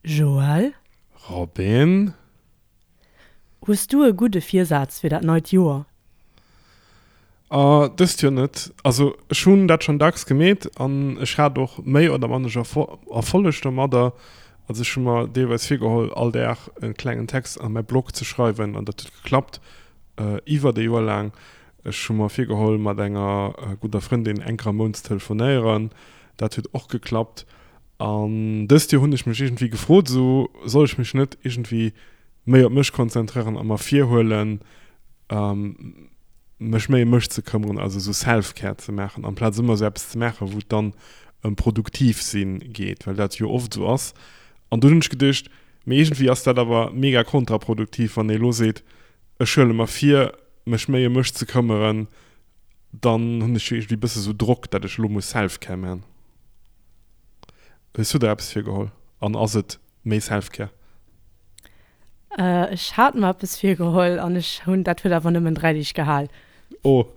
Joël? Robin? Hues du e gudde Virsaz fir dat neit Joer? Ah, dëst Joer net. Also ech hunn dat schonn dacks gemeet an ech hat och méi oder mannesch Erfolleg domadder. Also ech hu mer deelweis virgeholl, all Dag e klengen Text a mäi Blog ze schreiwen an dat huet geklappt iwwert e Joer laang. Ech hu mer virgeholl, mat enger gudder Frëndin eng Kéier am Mount ze telefonéieren. Dat huet och geklappt. An dëst Joer hunn ech mech iergendwéi gefrot, esou, soll ech mech net iergendwéi méi op mech konzentréieren a mer virhuelen, mech méi ëm mech ze këmmeren, also esou Self-Care ze maachen, amplaz ëmmer esou eppes ze maachen, wou et dann ëm produktiv sinn geet, well dat jo oft esou ass. An dunn hunn ech geduecht, mee iergendwéi ass dat awer mega kontraproduktiv, wann ee elo seet, ech huele mer vir, mech méi ëm mech ze këmmeren, dann hunn ech jo iergendwéi e bësse sou Drock, dat ech elo muss Self-Care man. Hues du der eppes virgeholl an ass et méi Self-Care? Ech hat mer eppes virgeholl an ech hunn, dat huet awer nëmmen 3 Deeg gehal. Oh.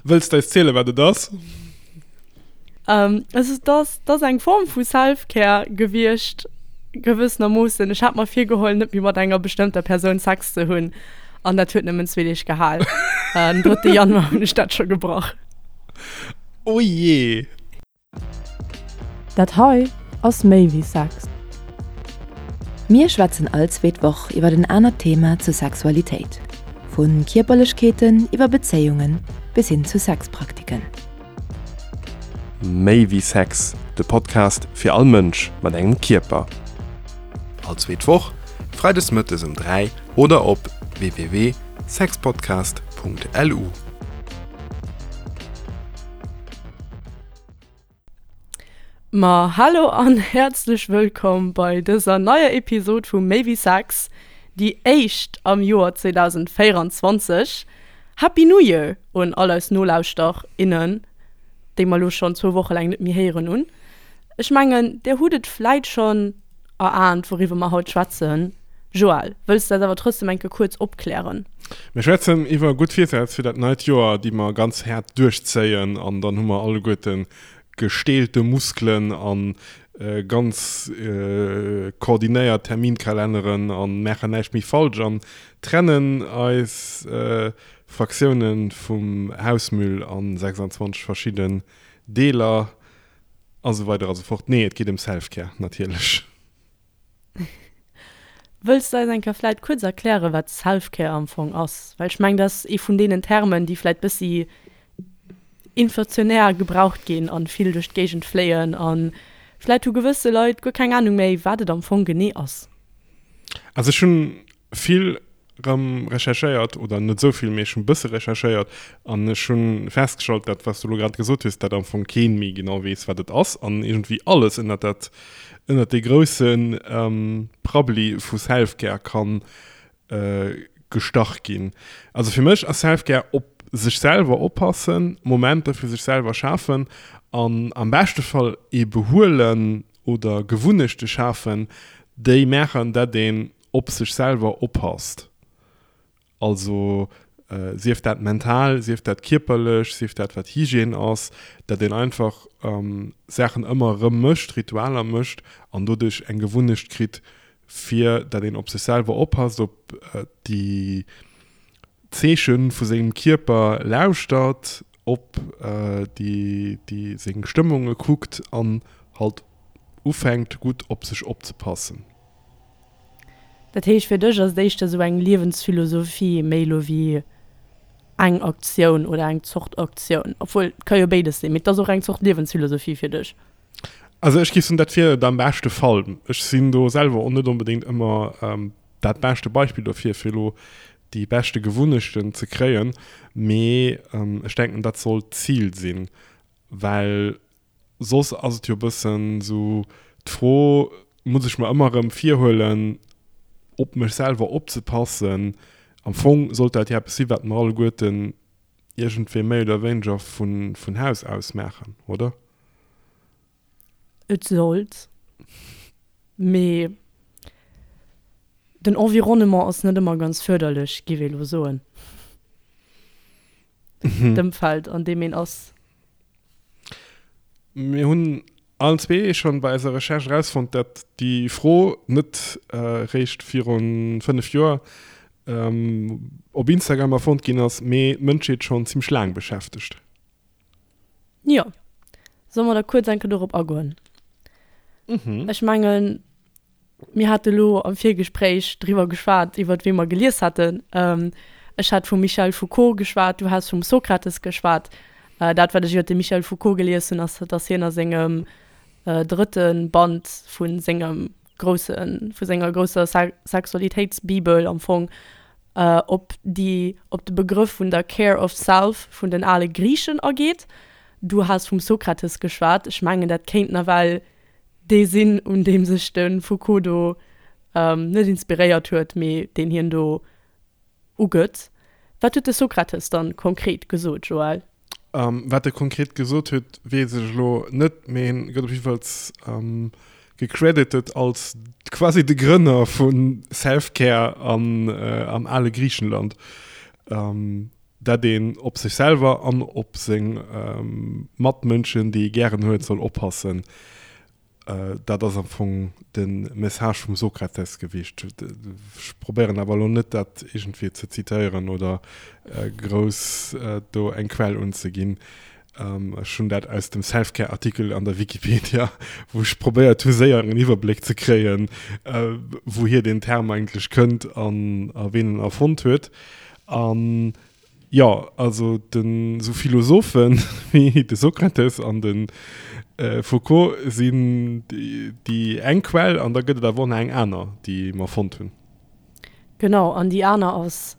Wëlls de eis zielen, wat et ass? Also et ass, et ass eng Form vu Self-Care gewiescht, gewëssenermoossen. Ech hat mer virgeholl, net méi mat enger bestëmmter Persoun Sex ze hunn an dat huet nëmmen zwee Deeg gehal. Den drëtte Januar hunn ech dat scho gebrach. Oh jee! Dat hei ass méi wéi Sex. Mir schwätzen all zweet Woch iwwer en anert Thema zur Sexualitéit, vu Kierperlechkeeten iwwer Bezéiungen bis hin zu Sexpraktiken. Méi wéi Sex, de Podcast fir all Mënsch mat engem Kierper. All zweet Woch, freides mëttes um 3 oder op www.sexpodcast.lu. Ma hallo an häerzlech wëllkomm bei dëser neier Episod vu Méi wéi Sex, déi éischt am Joer 2024. Happy New Year un all eis Nolauschter, innen, déi mer elo schonn zwou Woche laang net méi héieren hunn. Ech mengen, där hutt et vläit schonn Eraant, wouriwwer mer haut schwätzen. Joël, wëlls de eis awer trotzdem eng Kéier kuerz opklären? Mir schwätzen iwwer gutt Virsätz fir dat neit Joer, déi mer ganz haart duerchzéien an dann hu mer alleguerte gestählte Muskelen a ganz koordinéiert Terminkalenneren a maachen näischt méi falsch an trennen eis Fraktiounen vum Hausmüll a 26 verschidden Deeler. A sou weider a sou fort. Nee, et geet ëm Self-Care, natierlech. Wëlls de eis eng Kéier vläit kuerz erklären, wat Self-Care am Fong ass? Well ech mengen, dat ass ee vun deenen Termen, déi vläit bëssi inflationär gebraucht ginn an vill duerch d'Géigend fléien a vläit hu gewësse Leit guer keng Anung méi, wat et am Fong genee ass. Also ech hunn vill rëm recherchéiert, oder net esou vill, mee ech hunn e bësse recherchéiert an ech hu festgestallt, dat wat s du elo grad gesot hues, dat am Fong kee méi genau weess, wat et ass an iergendwéi alles ënnert dat, ënnert dee grousse Prabbeli vu Self-Care kann gestach ginn. Also fir mech ass Self-Care op sech selwer oppassen, Momenter fir sech selwer schafen an am beschte Fall ee Behuelen oder Gewunnechte schafen, déi maachen, dat een op sech selwer oppasst, also sief dat mental, sief dat kierperlech, sief dat wat Hygiène ass, dat een einfach Saachen ëmmer erëm mécht, Ritualer mécht an doduerch eng Gewunnecht kritt, fir dat een op sech selwer oppasst, op déi Zeeche vu sengem Kierper lauschtert, op déi seng Stëmmunge kuckt an halt ufänkt gutt op sech opzepassen. Dat heescht, fir dech ass et éischter esou eng Liewensphilosophie méi elo wéi eng Aktioun oder eng Zort Aktioun? Obwuel, et ka jo béides sinn, mee et ass och eng Zort Liewensphilosophie fir dech. Also ech géif soen, dat wier et am beschte Fall. Ech sinn do selwer och net onbedéngt ëmmer dat beschte Beispill dofir, fir elo déi beschte Gewunnechten ze kréien, mee ech denken, dat sollt d'Zil sinn, well Soss ass et jo e bëssen esou d'Fro, muss ech mer ëmmer erëm virhuelen, op mech selwer opzepassen? Am Fong sollt dat jo eppes sinn, wat mer alleguerten iergendwéi méi oder wéineger vun Haus aus maachen, oder? Et sollt, mee den Environnement ass net ëmmer ganz fërderlech, giff ee lo soen. D'Ëmfeld, an deem een ass. Mir hunn allen zwee schonn bei eiser Recherche erausfonnt, dat déi Fro net réischt virun 5 Joer op Instagram erfonnt ginn ass, mee d'Mënschheet schonn zimmlech laang beschäftegt. Jo. Solle mer da kuerz eng Kéier dorop agoen? Ech mengen, Mir hate lo am Virgespréich driwwer geschwat, iwwert wee mer gelies haten. Ech hat vum Michel Foucault geschwat, du has vum Sokrates geschwat. Dat, wat ech iwwert de Michel Foucault gelies hunn, ass, datt hien a sengem drëtte Band vu sengem groussen, vu senger grousser Sexualitéitsbibel am Fong op déi, op de Begrëff vun der Care of Self vun den ale Griichen ageet. Du has vum Sokrates geschwat. Ech mengen, dat kéint nawell dee sinn, un deem sech de Foucault do net inspiréiert huet, mee deen hien do ugëtt. Wat huet de Sokrates dann konkret gesot, Joël? Wat e konkret gesot huet, weess ech elo net, mee hien gëtt op jiddefalls gecredited als quasi de Grënner vu Self-Care am ale Griichenland. Dat een op sech selwer an op seng Matmënschen, déi ee gären huet, soll oppassen. Dat ass am Fong de Message vum Sokrates gewiescht. Ech probéieren awer elo net, dat iergendwéi ze zitéieren oder grouss do eng Quell unzeginn. Ech hunn dat aus dem Selfcare-Artikel an der Wikipedia, wou ech probéiert hu séier en Iwwerbléck ze kréien, wouhier deen Term eigentlech kënnt an a ween en erfonnt huet. An jo, also den esou Philosophen wéi de Sokrates an de Foucault sinn déi eng Quell an da gëtt et awer och nach eng aner, déi mer fonnt hunn. Genau, an déi aner ass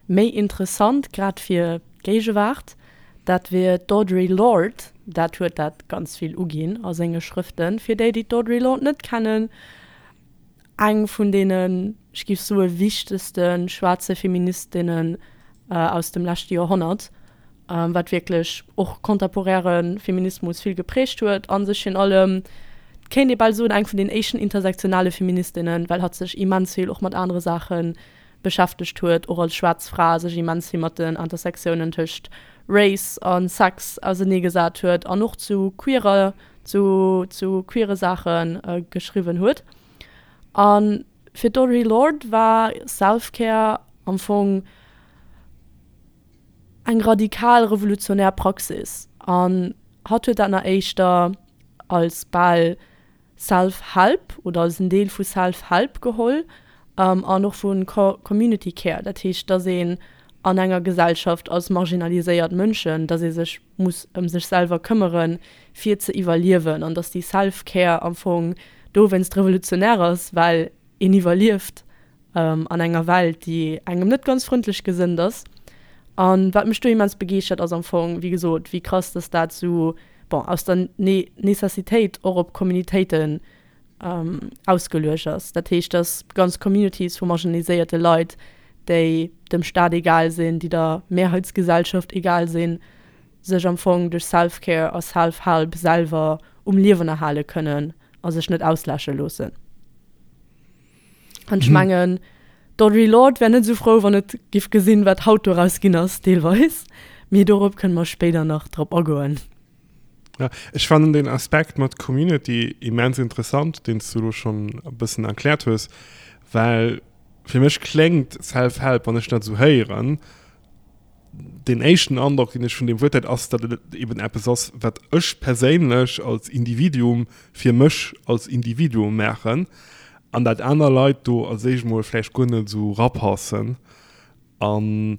méi interessant, grad fir d'Géigewaart. Dat wier d'Audre Lorde. Dat huet dat ganz vill uginn a senge Schrëften. Fir déi, déi d'Audre Lorde net kennen, Eng vun deenen, ech géif soe wichtegste schwaarze Feministinnen aus dem leschte Joerhonnert, wat wierklech och contemporäre Feminismus vill geprägt huet a sech virun allem, et kéint ee bal soen, eng vun den éischten intersektionale Feministinnen, well hatt sech immens vill och mat anere Saache beschäftegt huet, och als schwaarz Fra sech immens vill mat den Intersektiounen tëscht Race a Sex auserneegesat huet an och zu queerer, zu, zu queere Saache geschriwwen huet. A fir d'Audre Lorde war Self-Care am Fong eng radikal revolutionär Praxis an hatt huet dat nach éischter als bal Self-Help oder als en Deel vu Self-Help geholl an och vu Community Care, dat heescht, dass een an enger Gesellschaft als marginaliséiert Mënschen, dass ee sech muss ëm sech selwer këmmere fir ze iwwerliewen an dass déi Self-Care am Fong dowéinst revolutionär ass, well een iwwerlieft an enger Welt, déi engem net ganz frëndlech gesënnt ass. An wat mech do immens begeeschtert, ass am Fong, wéi gesot, wéi krass dass dat sou, bon, aus der Necessitéit och op Communitéiten ausgeluecht ass. Dat heescht, dass ganz Communities vu marginaliséierte Leit, déi dem Staat egal sinn, déi der Mehrheitsgesellschaft egal sinn, sech am Fong duerch Self-Care a Self-Help selwer um Liewen erhale kënnen a sech net ausläsche loossen. An ech mengen, d'Audre Lorde wär net esou frou, wann et giff gesinn, wat haut doraus ginn ass, deelweis. Mee dorop kënne mer spéider nach drop agoen. Ja, ech fannen den Aspekt mat Community immens interessant, deen s du elo schonn e bëssen erkläert hues, well fir mech kléngt Self-Help, wann ech dat esou héieren, deen éischten Androck, deen ech vun deem Wuert hat, ass, datt et eben eppes ass, wat ech perséinlech als Individuum fir mech als Individuum maachen an dat aner Leit do als éischt emol vläicht guer net esou rapassen. An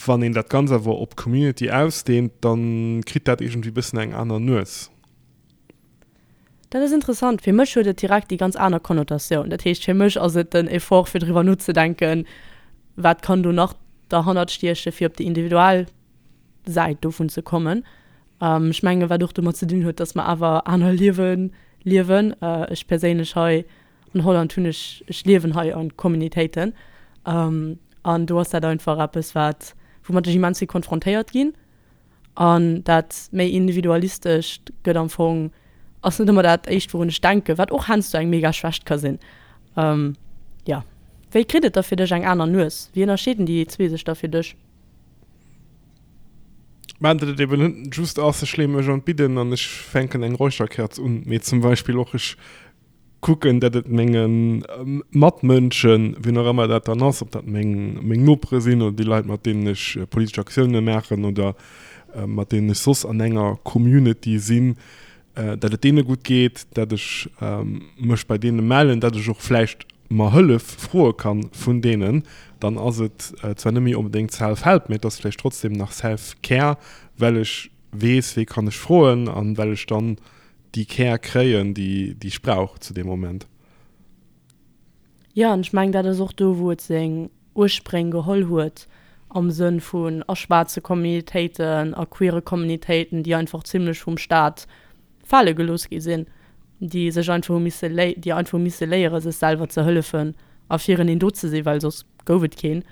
wann een dat Ganzt awer op d'Community ausdehnt, da kritt dat iergendwéi e bëssen eng aner Nues. Dat ass interessant. Fir mech huet et direkt déi ganz aner Konnotatioun. Dat heescht, fir mech ass et den Effort, fir driwwer nozedenken, wat kann do nach derhannert stiechen, fir op déi individuell Säit dovun ze kommen. Ech menge wat och domat ze dinn huet, datt mer awer aner Liewe liewen. Ech perséinlech hei an Holland hunn ech, ech liewen hei a Communitéiten an do ass dat einfach eppes, wat, woumat ech immens vill konfrontéiert ginn. An dat méi Individualistescht gëtt am Fong, ass net ëmmer dat éischt wourun ech denken, wat och heiansdo eng mega Schwächt ka sinn. Jo. Wéi kritt et da fir dech eng aner Nues? Wéi ënnerscheeden déi zwee sech da fir dech? Mä datt et eben net just ass, ech leeë mech an d'Bidden an ech fänken eng Räucherkerz un, mee zum Beispill och ech kucken, datt et menge Matmënschen, wien och ëmmer dat dann ass, ob dat meng meng Nopere sinn oder déi Leit, mat deenen ech politesch Aktioune maachen oder mat deenen ech soss an enger Community sinn, datt et deene gutt geet, datt ech mech bei deene mellen, datt ech och vläicht mer Hëllef froe kann vun deenen, dann ass et zwar net méi onbedéngt Self-Help, mee et ass vläicht trotzdem nach Self-Care, well ech weess, wee kann ech froen an well ech dann déi Care kréien, déi ech brauch zu deem Moment. Jo, an ech mengen, dat ass och do, wou et seng Urspréng geholl huet, am Sënn vun a schwaarze Communitéiten, a queere Communitéiten, déi einfach zimlech vum Staat fale gelooss gi sinn, déi sech einfach hu misse léi, déi einfach hu misse léiere sech selwer ze hëllefen a fireneen do ze sinn, well soss gouf et keen.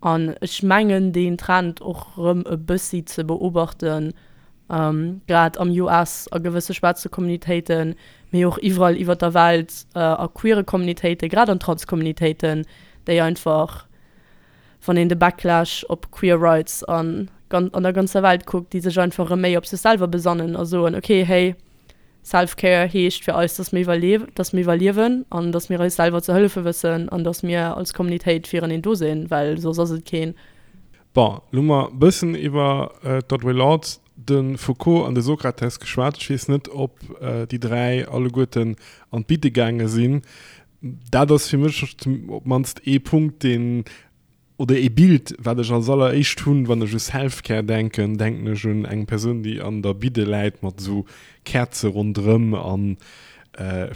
An ech mengen deen Trend och erëm e bëssi ze beobachten, grad am US a gewësse schwaarze Communitéiten, mee och iwwerall iwwer der Welt a queere Communitéiten, grad an Trans-Communitéiten, déi einfach, wann een de Backlash op Queer Rights an an der ganzer Welt kuckt, déi sech einfach erëm méi op sech selwer besannen a soen, okay, hey, Self-Care heescht fir eis, dass mir iwwerlie dass mir iwwerliewen an dass mir eis selwer ze hëllefe wëssen an dass mir als Communitéit fireneen do sinn, well soss ass et keen. Bon, lo hu mer e bëssen iwwer d'Audre Lorde, de Foucault an de Sokrates geschwat. Ech weess net, ob déi 3 alleguerten an d'Bidde gaange sinn. Dat ass fir mech op d'mannst ee Punkt, deen, oder ee Bild, wat ech als alleréischt hunn, wann ech u Self-Care denken, denken ech un eng Persoun, déi an der Bidde läit mat esou Käerze ronderëm a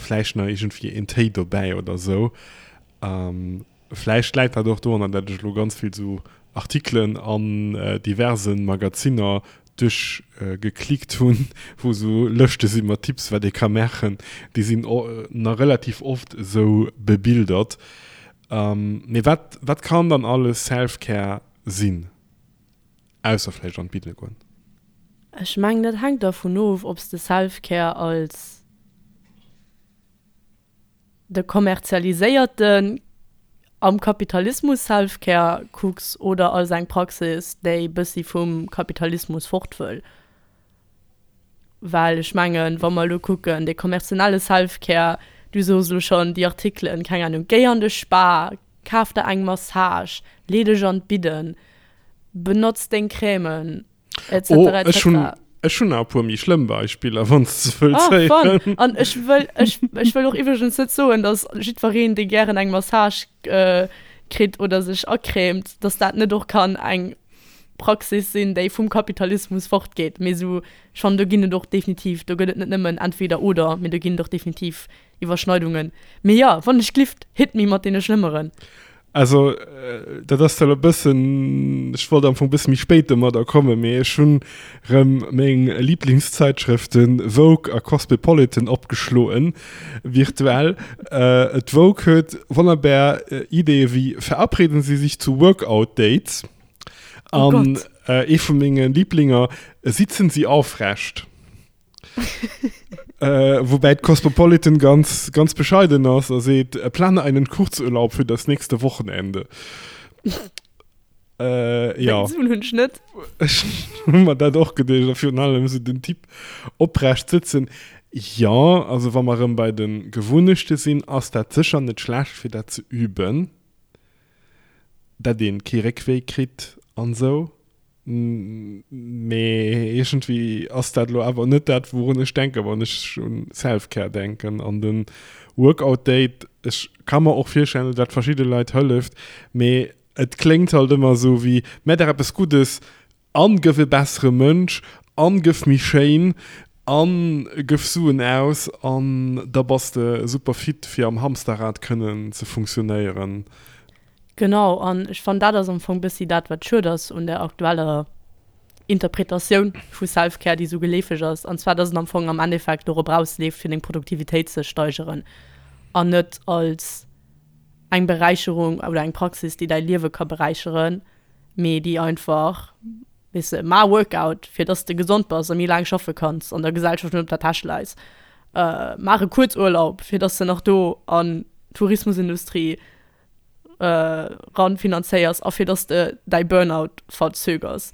vläicht nach iergendwéi een Téi dobäi oder esou. Vläicht läit dat och dorunner, dat ech elo ganz vill esou Artikelen an diverse Magazinner duerchgeklickt hunn, wou esou Lëschte si mat Tipps, wat ee ka maachen. Déi sinn nach relativ oft esou bebildert. Mee wat, wat kann dann alles Self-Care sinn, ausser vläicht an d'Bidle goen? Ech mengen, dat hänkt dervun of, ob s de Self-Care als de kommerzialiséierten, am Kapitalismus Self-Care kucks oder als eng Praxis, déi bëssi vum Kapitalismus fort wëll. Well ech mengen, wa mer elo kucken, dee kommerzielle Self-Care, du sos elo schonn déi Artikelen, keng Ahnung, géi an de Spa, kaf der eng Massage, lee dech an d'Bidden, benotz deng Crèmen, et cetera, et cetera. Oh, ech hunn, ech hunn nach e puer méi schlëmm Beispiller, wann s de wëlls héieren. Oh, fun! An ech wëll, ech, ech wëll och iwwregens net soen, dass jiddwereen, dee gären eng Massage kritt oder sech acrèmt, dass dat net och kann eng Praxis sinn, déi vum Kapitalismus fortgeet. Mee esou, ech fannen, do ginn et och definitiv, do gëtt et net nëmmen entweder oder, mee do ginn et och definitiv Iwwerschneidungen. Mee jo, wann ech glift, hit me mat deene schlëmmeren. Also, dat ass zwar elo e bëssen, ech wollt am Fong e bësse méi spéit domadder kommen, mee ech hunn erëm meng Lieblingszeitschrëften Vogue a Cosmopolitan opgeschloen, virtuell. D'Vogue huet wonnerbar Ideeë wéi Verabreden Sie sich zu Workout-Dates an ee vu menge Liblinger, Sitzen Sie aufrecht. Woubäi d'Cosmopolitan ganz, ganz bescheiden ass a seet, Plane einen Kurzurlaub für das nächste Wochenende. Äh, ja. Suen hunn ech net. Ech hu mer dat och geduecht, a virun allem esou den Typ oprecht sëtzen. Jo, also wa mer erëm bei de Gewunnechte sinn, ass dat sécher net schlecht, fir dat ze üben, dat ee kee Réckwéi kritt an esou. Mee iergendwéi ass dat elo awer net dat, wourun ech denken, wann ech un Self-Care denken. An de Workout Date, ech ka mer och virstellen, datt dat verschidde Leit hëlleft, mee Et kléngt halt ëmmer esou wéi, Mä der eppes Guddes an gëff e bessere Mënsch an gëff méi schéin an gëff Suen aus an da bass de super fit fir am Hamsterrad kënnen ze funktionéieren. Genau, an ech fannen dat ass am Fong bëssi dat wat schued ass un der aktueller Interpretatioun vu Self-Care déi esou geleefeg ass, an zwar dass et am Fong am Endeffekt dorop rausleeft fir deng Produktivitéit ze steigeren an net als eng Beräicherung oder eng Praxis, déi däi Liewe ka beräicheren, mee déi einfach, weess de, maach e Workout, fir dass de gesond bass a méi laang schaffe kanns an der Gesellschaft net op der Täsch läis. Maach e Kuerzurlaub, fir dass de nach do an d'Tourismusindustrie ran finanzéiers a fir dass de däi Burnout verzögers.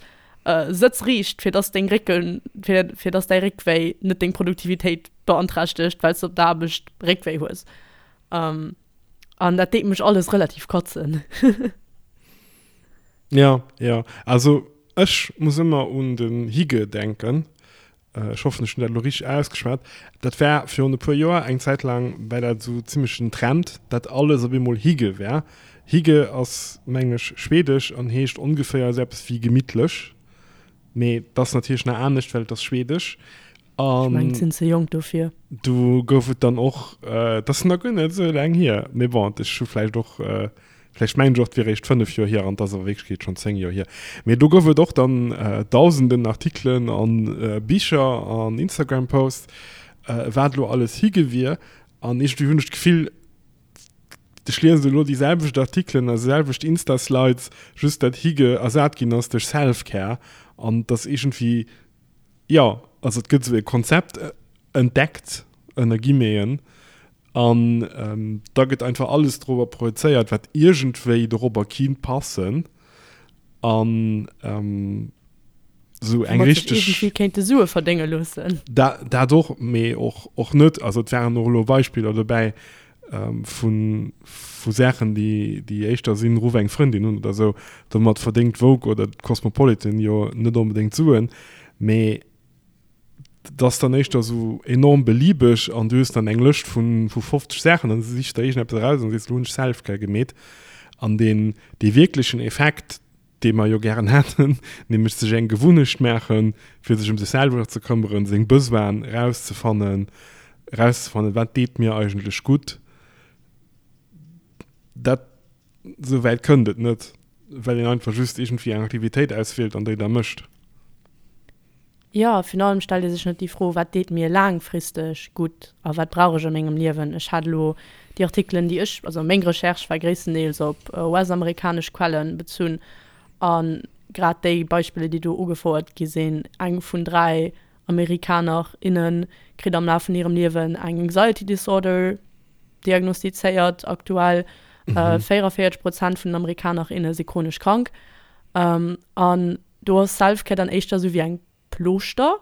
Sëtz riicht, fir dass deng Récken, fir, fir dass däi Réckwéi net deng Produktivitéit beanträchtegt, well s de op der Aarbecht Réckwéi hues. An dat deet mech alles relativ kotzen. Ja, ja. Also ech muss ëmmer un den Hygge denken. Ech hoffen, ech hunn dat elo richteg ausgeschwat. Dat war virun e puer Joer, eng Zäit laang war dat esou zimmlech den Trend, dat alles op eemol Hygge war. Hygge ass, mengen ech, schwedesch an heescht ongeféier esou eppes wéi gemittlech. Mee et ass natierlech nach anescht, well et ass schwedesch. Ech mengen, ech sinn ze jonk dofir. Do gouf et dann och, et ass nach guer net esou laang hier, mee bon, ech hu vläicht och Vläicht mengen ech och, et wier eréischt 5 Joer hier an et ass a Wierklechkeet schonn 10 Joer hier. Mee do gouf et och dann dausenden Artikelen a Bicher an Instagram-Posts, wat elo alles hige wier. An iergendwéi hunn ech d'Gefill, ech liesen elo déi selwecht Artikelen a selwecht Insta-Slides, just dat hige ersat ginn ass duerch Self-Care. An et ass iergendwéi, jo, also et gëtt esou e Konzept entdeckt, ënner Guillemeten, An da gëtt einfach alles dorobber projezéiert, wat iergendwéi dorobber kinnt passen. An esou eng richteg. Iergendwéi kéinte Sue verdénge loossen. Dat och, mee och, och net. Also et waren och elo Beispiller dobäi vu, vu Saachen, déi, déi éischter sinn, Ruff eng Frëndin un oder esou. Domat verdéngt d'Vogue oder d'Cosmopolitan jo net onbedéngt Suen, mee. Dat ass dann éischter esou enorm beliebeg an du hues dann eng Lëscht vun vu 50 Saachen an sichs der iergendeppes eraus an sees, elo hunn ech Selfcare gemeet. An deen dee wierklechen Effekt, dee mer jo gären hätten, nämlech sech eng Gewunnecht maachen, fir sech ëm sech selwer ze këmmeren, seng Besoinen erauszefannen, erauszefannen, wat deet mir eigentlech gutt, dat esou wäit kënnt et net, well een einfach just iergendwéi eng Aktivitéit auswielt an déi da mécht. Jo, virun allem stellt ee sech net déi Fro, wat deet mir laangfristeg gutt a wat brauch ech a mengem Liewen? Ech hat elo déi Artikelen, déi ech, also meng Recherche war gréisstendeels op US-amerikanesch Quellen bezunn a grad déi Beispiller, déi do ugefouert gi sinn, eng vun 3 Amerikaner, innen kritt am Laf vun hirem Liewen eng Anxiety Disorder diagnostizéiert aktuell, 44 Prozent vun den Amerikaner, inne si chronesch krank an Do ass Selfcare dann éischter sou wéi eng Plooschter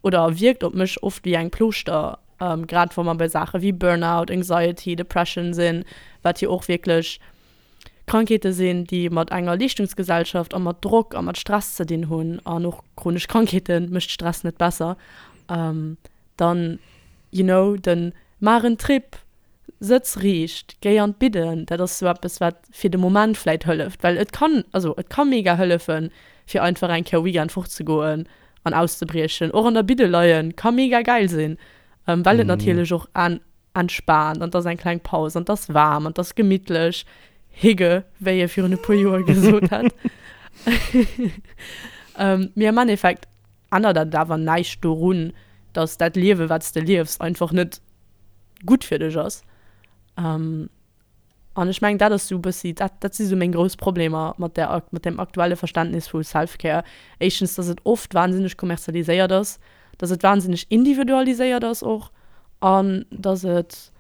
oder wierkt op mech oft wéi eng Plooschter, grad wa mer bei Saache wéi Burnout, Anxiety, Depression sinn, wat jo och wierklech Krankheete sinn, déi mat enger Leeschtungsgesellschaft a mat Drock a mat Stress ze dinn hunn an och chronesch Krankheete mécht Stress net besser. Dann, you know, den maach en Trip, Sëtz riicht, géi an d'Bidden, dat ass sou eppes wat fir de Moment vläit hëlleft, well et kann, also et ka mega hëllefen fir einfach eng Kéier Weekend fort ze goen an auszebriechen. Och an der Bidde leien ka mega gäil sinn, well et natierlech och en entspaant an 't ass eng kleng Paus an 't ass waarm an 't ass gemittlech, Hygge, wéi ee virun e puer Joer gesot hätt. Mee am Endeffekt ännert dat awer näischt dorun, dass dat Liewe wat s de liefs einfach net gutt fir dech ass. An ech mengen, dat ass esou e bëssi, dat, dat si sou meng grouss Problemer mat där, mat deem aktuelle Verständnis vu Self-Care. Éischtens, dass et oft wahnsinneg kommerzialiséiert ass, dass et wahnsinneg individualiséiert ass och an dass et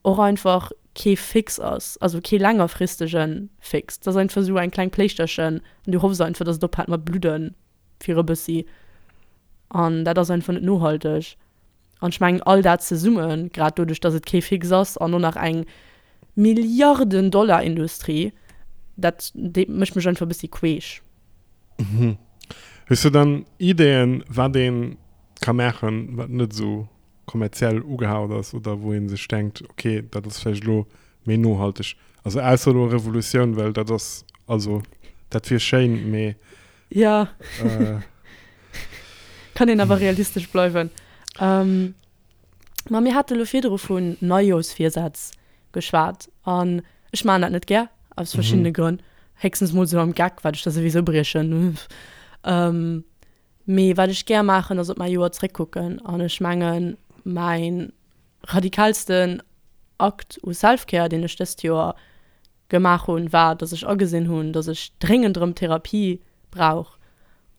och einfach kee Fix ass, also kee längerfristege Fix. Et ass einfach esou eng kleng Pléischterchen an du hoffs einfach, dass et ophält mat bludden fir e bëssi. An dat ass einfach net nohalteg. An ech mengen, all dat zesummen, grad doduerch, dass et kee Fix ass an och nach eng Milliarden-Dollar-Industrie, dat deet, mécht mech einfach e bëssi queesch. Mhm. Hues du dann Ideeën, wat ee ka maachen, wat net esou kommerziell ugehaucht ass oder wou ee sech denkt, okay, dat ass vläicht elo méi nohalteg? Also ausser elo Revolutioun, well dat ass, also dat wier schéin, mee Ja. Äh. Kann een awer realistesch bleiwen. Ähm, ma mir hate lo virdru vun Neijooschvirsätz geschwat an ech maachen dat net gär, aus verschiddene mhm. Grënn. Héchstens mol sou am Geck, wat ech da souwisou briechen. ähm, mee wat ech gär maachen, ass op mäi Joer zréckkucken an ech mengen, mäin radikalsten Akt u Self-Care, deen ech dëst Joer gemaach hunn, war, dass ech agesinn hunn, dass ech dréngend erëm Therapie brauch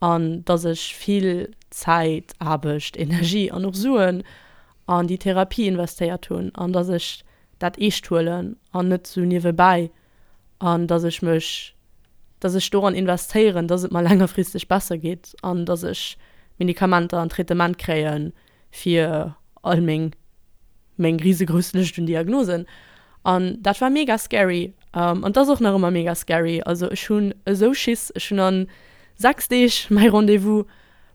an dass ech vill Zäit, Aarbecht, Energie an och Suen an déi Therapie investéiert hunn an dass ech dat eescht huelen an net sou niewebäi an dass ech mech. Dass ech doran investéieren, dass et mer längerfristeg besser geet an dass ech Medikamenter an Traitement kréie fir all meng meng risegrouss Lëscht un Diagnosen. An dat war mega scary. An et ass och nach ëmmer mega scary. Also ech hunn esou Schiss. Ech hunn an 6 Deeg mäi Rendez-vous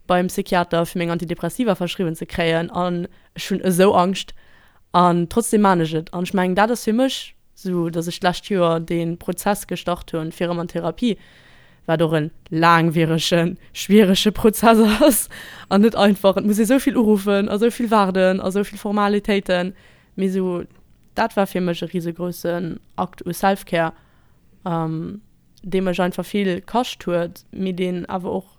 beim Psychiater fir meng Antidepressiva verschriwwen ze kréien an ech hunn esou Angscht. An trotzdem maan ech et. An ech mengen dat ass fir mech sou dass ech d'lescht Joer dee Prozess gestart hunn fir erëm an Therapie, wat och en laangwieregen, schwierege Prozess ass an net einfach. Et muss ee sou vill uruffen a sou vill waarden a sou vill Formalitéiten. Mee sou dat war fir mech e risegroussen Akt u Self-Care, dee mech einfach vill kascht huet, mee deen awer och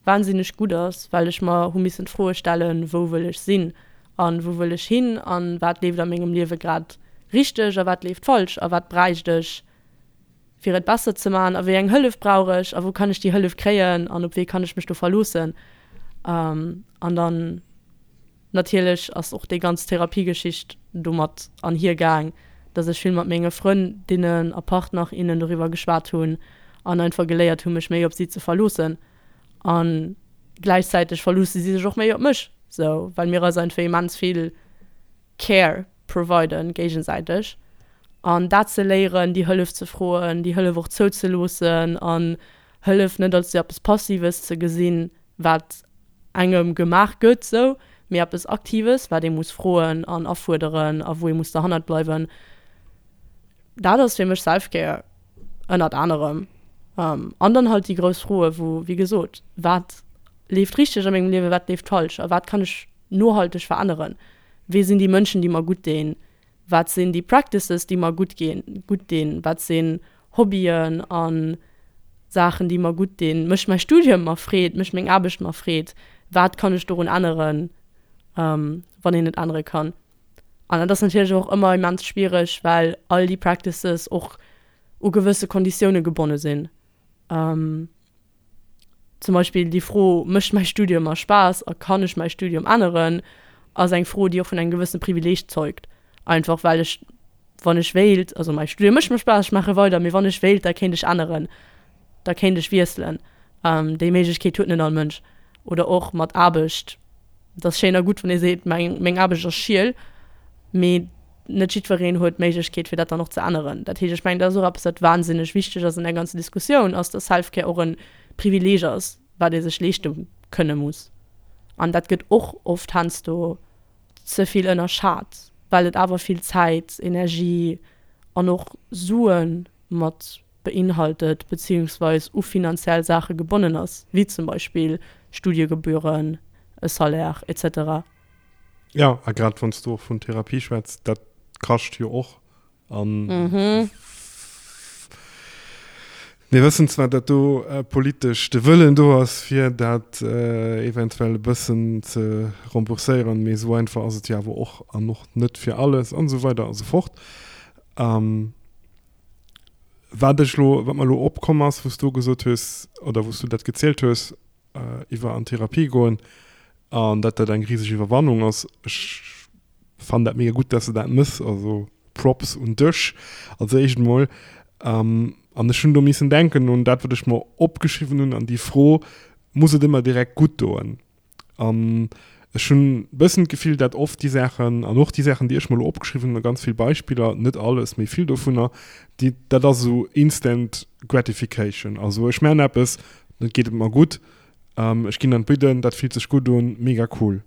wahnsinneg gutt ass, well ech mer hu missen d'Froe stellen, wou wëll ech sinn an wou wëll ech hin an wat leeft a mengem Liewe grad richteg a wat leeft falsch a wat bräicht ech fir et besser ze man a wéi eng Hëllef brauch ech a wou kann ech déi Hëllef kréien an op wee kann ech mech do verloossen. An dann natierlech ass och déi ganz Therapiegeschicht domat anhier gaang, dass ech vill mat menge Frëndinnen a Partner, innen doriwwer geschwat hunn an einfach geléiert hu mech méi op si ze verloossen a gläichzäiteg verloosse si sech och méi op mech, sou well mir eis einfach immens vill Care providen géigesäiteg an dat ze léieren, déi Hëllef ze froen, déi Hëllef och zouzeloossen an Hëllef net als eppes Passives ze gesinn, wat engem gemaach gëtt sou, mee eppes Aktives, wat ee muss froen an afuerderen a wou ee muss derhannert bleiwen. Dat ass fir mech Self-Care ënnert anerem. An dann halt déi grouss Froe wou, wéi gesot, wat leeft richteg a mengem Liewen, wat leeft falsch a wat kann ech nohalteg veränneren? Wee sinn déi Mënschen, déi mer gutt dinn? Wat sinn déi Practices, déi mer gutt ginn, gutt dinn? Wat sinn Hobbyen a Saachen, déi mer gutt dinn? Mécht mäi Studium mer Freed? Mécht meng Aarbecht mer Freed? Wat kann ech dorun änneren, wann een et ännere kann? An dat ass natierlech och ëmmer immens schwiereg, well all déi Practices och u gewësse Konditioune gebonne sinn. Zum Beispill déi Fro, Mécht mäi Studium mer Spaass a kann ech mäi Studium änneren? ass eng Fro, déi och vun engem gewëssene Privileeg zeugt. Einfach well ech, wann ech wéilt, also mäi Studium mécht mer Spaass, ech maache weider, mee wann ech wéilt, da kéint ech änneren, da kéint ech wiesselen. Déi Méiglechkeet huet net all Mënsch. Oder och mat Aarbecht, Et ass schéin a gutt, wann ee seet, meng Aarbecht ass schiel, mee net jiddwereen huet d'Méiglechkeet, fir dat dann och ze änneren. Dat heescht, ech mengen, dat ass och eppes, wat wahnsinneg wichteg ass an där ganzer Diskussioun, ass, dass Self-Care och e Privileeg ass, wat ee sech leeschte kënne muss. An dat gëtt och oft heiansdo ze vill ënnerschat, well et awer vill Zäit, Energie an och Sue mat beinhaltet beziehungsweis u finanziell Saache gebonnen ass, wéi zum Beispill Studiegebühren, e Salaire et cetera. Jo, a grad wann s du och vun Therapie schwätz, dat kascht jo och. An mir wëssen zwar, datt do politesch de Wëllen do ass, fir dat eventuell e bëssen ze rembourséieren, mee esou einfach ass et jo awer och an och net fir alles an esou weider a sou fort. Wat ech elo, wat mer elo opkomm ass, wou s du gesot hues oder wou s du dat gezielt hues, iwwer an Therapie goen an dat dat eng riseg Iwwerwannung ass. Ech fannen dat mega gutt, dass de dat mëss, also Props un dech als éischt emol. An ech hunn do missen denken un dat, wat ech mer opgeschriwwen hunn an déi Fro, Muss et ëmmer direkt gutt doen? An ech hunn e bëssen d'Gefill, dat oft déi Saachen, an och déi Saachen, déi ech mer elo opgeschriwwen hunn, a ganz vill Beispiller, net alles, mee vill dovunner, déi, dat ass esou instant gratification. Also ech maachen eppes, dann geet et mer gutt, ech ginn an d'Bidden, dat fillt sech gutt un, mega cool.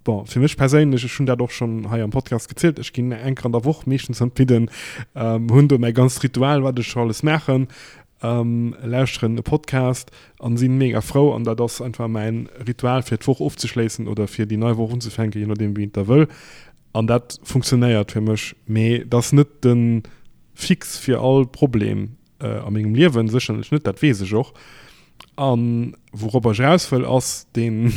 Bon, fir mech perséinlech, ech hunn dat och schonn hei am Podcast gezielt, ech ginn eng Kéier an der Woch meeschtens an d'Bidden, hunn do mäi ganzt Ritual, wat ech scho alles maachen, lauschteren e Podcast an sinn mega frou an dat ass einfach mäin Ritual fir d'Woch ofzeschléissen oder fir déi nei Woch unzefänken, je nodeem wéi een et da wëll. An dat funktionéiert fir mech, mee et ass net de Fix fir all Problem a mengem Liewen, sécherlech net, dat weess ech och. An wouropper ech eraus wëll, ass deen,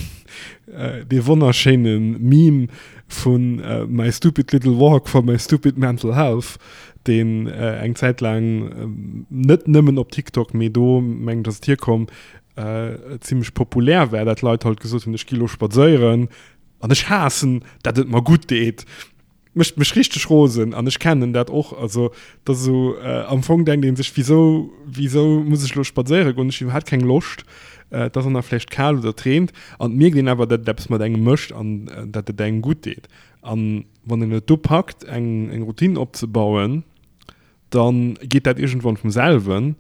dee wonnerschéine Meme vu My stupid little walk for my stupid mental health, deen eng Zäit laang net nëmmen op TikTok, mee do mengen ech ass et hierkomm, zimmlech populär war, dat Leit halt gesot hunn, ech gi lo spadséieren an ech haassen, dat et mer gutt deet. Mécht mech richteg rosen an ech kennen dat och. Also et ass esou, am Fong denkt ee sech, wisou, wisou muss ech elo spadséiere goen, ech hu iwwerhaapt keng Loscht, et ass och nach vläicht kal oder et reent an et mierkt een awer, datt et eppes mat engem mécht an datt et engem gutt deet. An wann een et do packt, eng eng Routine opzebauen, da geet dat iergendwann vum selwen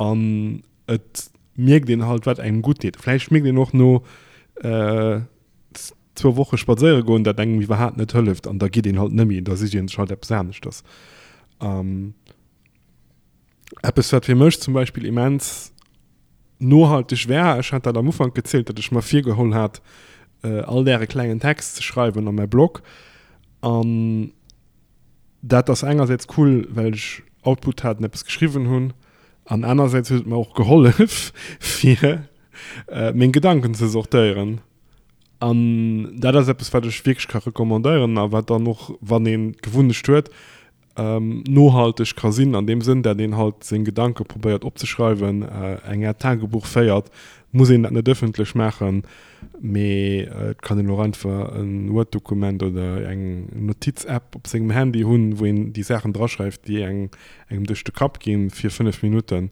an et mierkt een halt, wat engem gutt deet. Vläicht mierkt een och no zwou Woche spadséiere goen, dat engem iwwerhaapt net hëlleft an da geet een halt nëmmi, da sicht een sech halt eppes aneschters. Ähm, eppes wat fir mech zum Beispill immens nohalteg war, ech hat dat am Ufank gezielt, datt ech mer virgeholl hat, äh, all Dag e klengen Text ze schreiwen a mäi Blog an dat ass engersäits cool, well ech Output hat an eppes geschriwwen hunn an anersäits huet et mer och gehollef fir äh, meng Gedanken ze sortéieren. An dat ass eppes, wat ech wierklech ka recommandéieren a wat dann och, wann een d'Gewunnecht huet, nohalteg ka sinn an deem Sënn, dat een halt seng Gedanke probéiert opzeschreiwen, eng Aart Tagebuch féiert. Muss een dat net ëffentlech maachen, mee et kann een och einfach e Word-Dokument oder eng Notiz-App op sengem Handy hunn, wou een déi Saachen draschreift, déi engem duerch de Kapp ginn, fir 5 Minutten.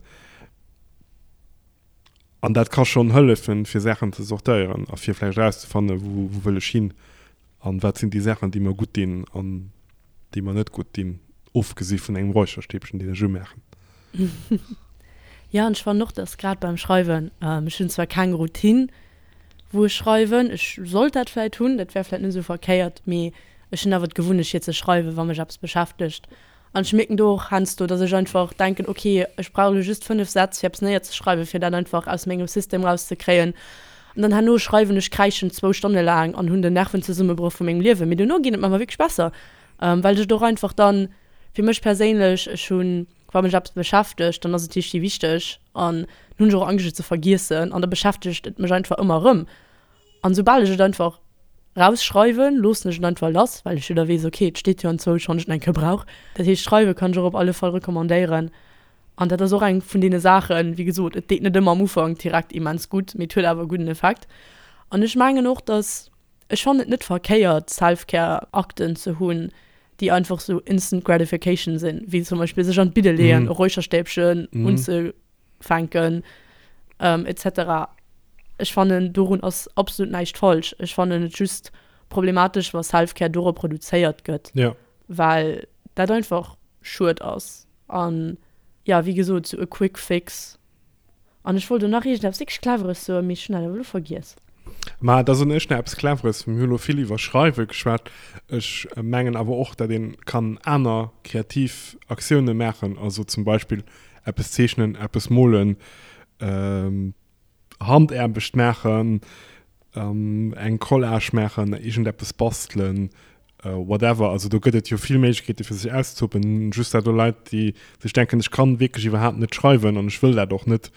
An dat ka schonn hëllefen, fir Saachen ze sortéieren a fir vläicht erauszefannen, wou wëll ech hin an wat sinn déi Saachen, déi mer gutt dinn an déi mer net gutt dinn, ofgesi vun engem Räucherstäbchen, deen ech umaachen. Jo, an ech fannen och, dass grad beim Schreiwen, ech hunn zwar keng Routine, wou ech schreiwen, ech sollt dat vläicht hunn, dat wär vläicht net esou verkéiert, mee ech hunn awer d'Gewunnecht fir ze schreiwen, wa mech eppes beschäftegt An ech mierken do och heiansdo, dass ech einfach denken, ok, ech brauch elo just 5 Sätz fir eppes néierzeschreiwen, fir dat einfach aus mengem System rauszekréien. An dann herno schreiwen ech kräischend zwou Stonne laang an hunn den Nervenzesummenbroch vu mengem Liewen. Mee dono geet et mer awer wierklech besser, well ech et och einfach dann, fir mech perséinlech, ech hunn, wa mech eppes beschäftegt, dann ass et richtig wichteg an dann hunn ech och Angscht et ze vergiessen an da beschäftegt et mech einfach ëmmer erëm. An soubal ech et einfach rausschreiwen, loossen ech et einfach lass, well ech jo da weess, ok, et steet jo anzwousch, wann ech et eng Kéier brauch. Dat heescht, schreiwe kann ech och op alle Fall recommandéieren. An dat ass och eng vun deene Saachen, wéi gesot, et deet net ëmmer am Ufank direkt immens gutt, mee et huet awer e gudden Effekt. An ech mengen och, dass, ech fannen et net verkéiert, Self-Care-Akten ze hunn, déi einfach sou instant gratification sinn, wéi zum Beispill sech an d'Bidde leeën, e Räucherstäbchen unze. fänken etc. Ech fannen dorun ass absolut näischt falsch. Ech fannen et just problematesch wa Selfcare dorop reduzéiert gëtt, ja. well dat einfach schued ass an ja wéi gesot sou e quick fix. An ech wollt elo nach iergendeppes wierklech Cleveres soen, mee ech hunn dat awer elo vergiess. Ma da soen ech nach eppes Cleveres. Mir hu lo vill iwwer Schreiwe geschwat. Ech mengen awer och, datt ee kann aner kreativ Aktioune maachen, also zum Beispill eppes zeechnen, eppes molen, Handaarbecht maachen, eng Collage maachen, iergendeppes bastelen, whatever. Also do gëtt et jo vill Méiglechkeete fir sech auszetoben. Just dat do Leit, déi sech denken, ech kann wierklech iwwerhaapt net schreiwen an ech wëll dat och net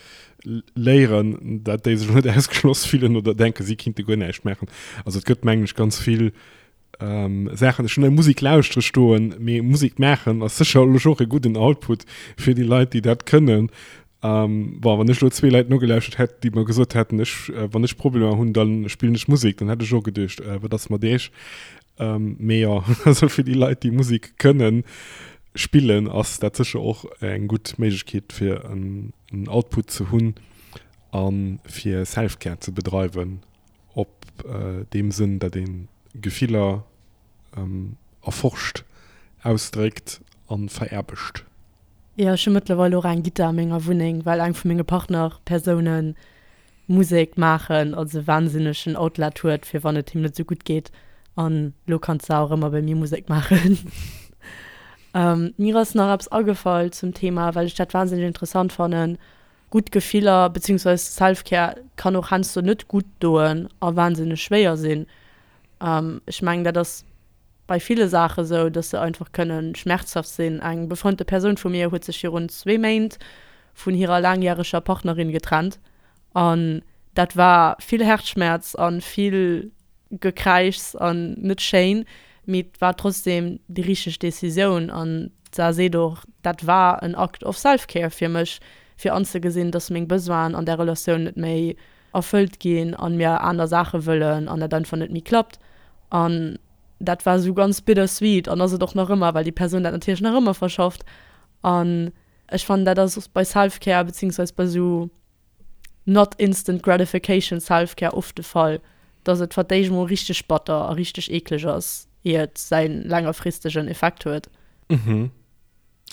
léieren, dat déi sech net ausgeschloss fillen oder denken, si kinnte guer näischt maachen. Also et gëtt mengen ech ganz vill Saachen. Ech hunn hei Musek lauschtere stoen, mee Musek maachen ass sécherlech och e gudden Output fir déi Leit, déi dat kënnen. Bon, wann ech elo zwee Leit nogelauschtert hätt, déi mer gesot hätten, ech, wann ech Problemer hunn, da spillen ech Musek, dann hätt ech och geduecht, wat ass mat iech? Mee jo, also fir déi Leit, déi Musek kënnen spillen, ass dat sécher och eng gutt Méiglechkeet, fir en Output ze hunn a fir Self-Care ze bedreiwen, op deem Sënn, datt ee Gefiller erforscht, ausdréckt a veraarbecht. Jo, ech hu mëttlerweil och eng Gittar a menger Wunneng, well eng vu menge Partnerpersounen Musek maachen als e wahnsinnegen Outlet huet, fir wann et him net esou gutt geet. An elo kann d'Sar och ëmmer bei mir Musek maachen. Mir ass nach eppes agefall zum Thema, well ech dat wahnsinneg interessant fannen, Gutt Gefiller beziehungsweise Self-Care kann och heiansdo net gutt doen a wahnsinneg schwéier sinn. Ech mengen, dat ass bei ville Saache sou, dass se einfach kënne schmerzhaft sinn. Eng befreundete Persoun vu mir huet sech virun zwee Méint vun hirer laangjäreger Partnerin getrennt an dat war vill Herzschmerz a vill Gekräischs an net schéin, mee et war trotzdem déi richteg Decisioun an d'Sar seet och, dat war en Act of self-care fir mech, fir anzegesinn, dass meng Besoinen an där Relatioun net méi erfëllt ginn an mir aner Saache wëllen an dat einfach net méi klappt. An. dat war esou ganz bittersweet an ass et och nach ëmmer, well déi Persoun dat natierlech nach ëmmer verschafft. An ech fannen, dat ass bei Self-Care beziehungsweise bei esou not instant gratification Self-Care oft de Fall, dass et fir d'éischt emol richteg batter a richteg eekleg ass, ier et säi längerfristegen Effekt huet. Mhm.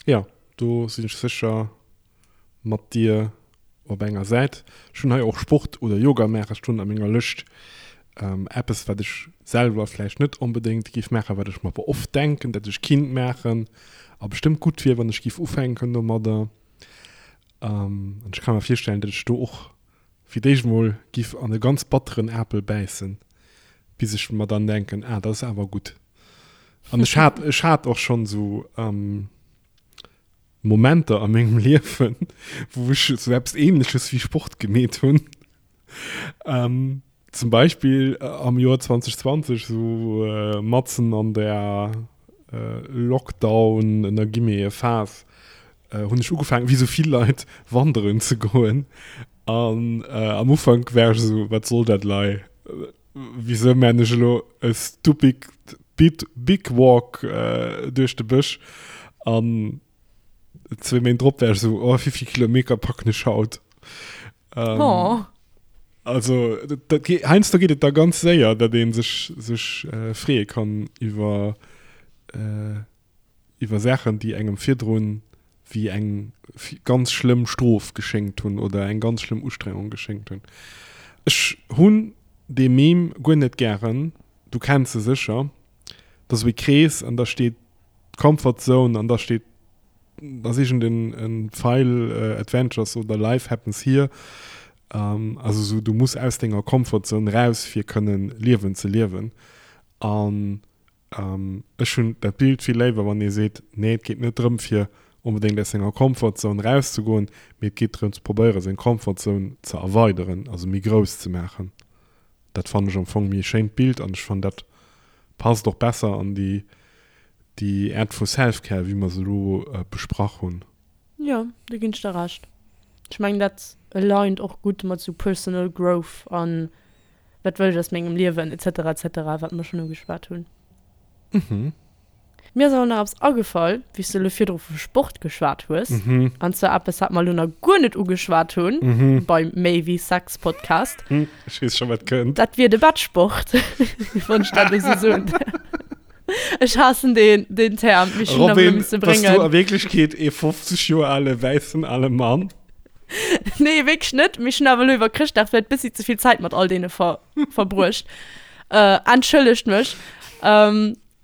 Jo, do sinn ech sécher mat dir op enger Säit. Ech hunn hei och Sport oder Yoga maache stoen a menger Lëscht. Eppes, wat ech selwer vläicht net onbedéngt géif maachen, wat ech mer awer oft denken, dat ech kinnt maachen a bestëmmt gutt wier, wann ech géif ufänken domadder. An ech ka mer virstellen, datt ech do och fir d'éischt mol giff an e ganz batteren Apel bäissen, bis ech mer dann denken, ah, dat ass awer gutt. An ech hat, ech hat och schonn esou Momenter a mengem Liewen, wou ech esou eppes Ähnleches wéi Sport gemeet hunn. Zum Beispill am Joer 2020, esou matzen an der Lockdown, ënner Guillemete, Phas, hunn ech ugefaangen, wéi esou vill Leit, wanderen ze goen. An am Ufank war ech esou, wat soll dat lei? Wisou maan ech elo e stupid big walk duerch de Bësch? An zwee Méint drop war ech esou, oh, wéivill Kilometer packen ech haut? Ähm, oh. Also dat, heiansdo geet et da ganz séier, datt ee sech, sech äh, freeë kann iwwer, äh, iwwer Saachen, déi engem virdrun wéi eng ganz schlëmm Strof geschéngt hunn oder eng ganz schlëmm Ustrengung geschéngt hunn. Ech hunn dee Meme guer net gären, du kenns e sécher, dat ass esou e Krees an da steet Comfort Zone an da steet da ass iergend en en Pfeil Adventures oder Life happens here. Also esou du muss aus denger Comfort Zone raus fir kënnen Liewen ze liewen. An ech hunn dat Bild vill léiwer wann ee seet, nee et geet net drëm fir onbedéngt aus senger Comfort Zone rauszegoen, mee et geet drëm ze probéiere seng Comfort Zone ze erweideren, also méi grouss ze maachen. Dat fannen ech am Fong méi e schéint Bild an ech fannen dat passt och besser an déi déi Aart vu Self-Care wéi mer se elo besprach hunn. Jo, do ginn ech der Recht. Ech mengen dat aligned och gutt mat sou personal growth an wat wëll ech aus mengem Liewen etc etc wat mer schonn ugeschwat hunn. Mhm. Mir ass awer nach eppes agefall, wéi s de elo virdru vu Sport geschwat hues. An zwar eppes, wat mer elo nach guer net ugeschwat hunn beim Méi wéi Sex Podcast. Ech weess scho wat kënnt. Dat wier de Bettsport, wann ech dat esou soen däerf. Ech haassen deen, deen Term, mee ech hunn en awer elo Robin, misse bass du bréngen. a Wierklechkeet ee 50 Joer ale wäissen ale Mann? Nee, wierklech net. Mee ech hunn awer elo iwwer Chrëschtdag vläicht bëssi ze vill Zäit mat all deene ver verbruecht. Entschëllegt mech.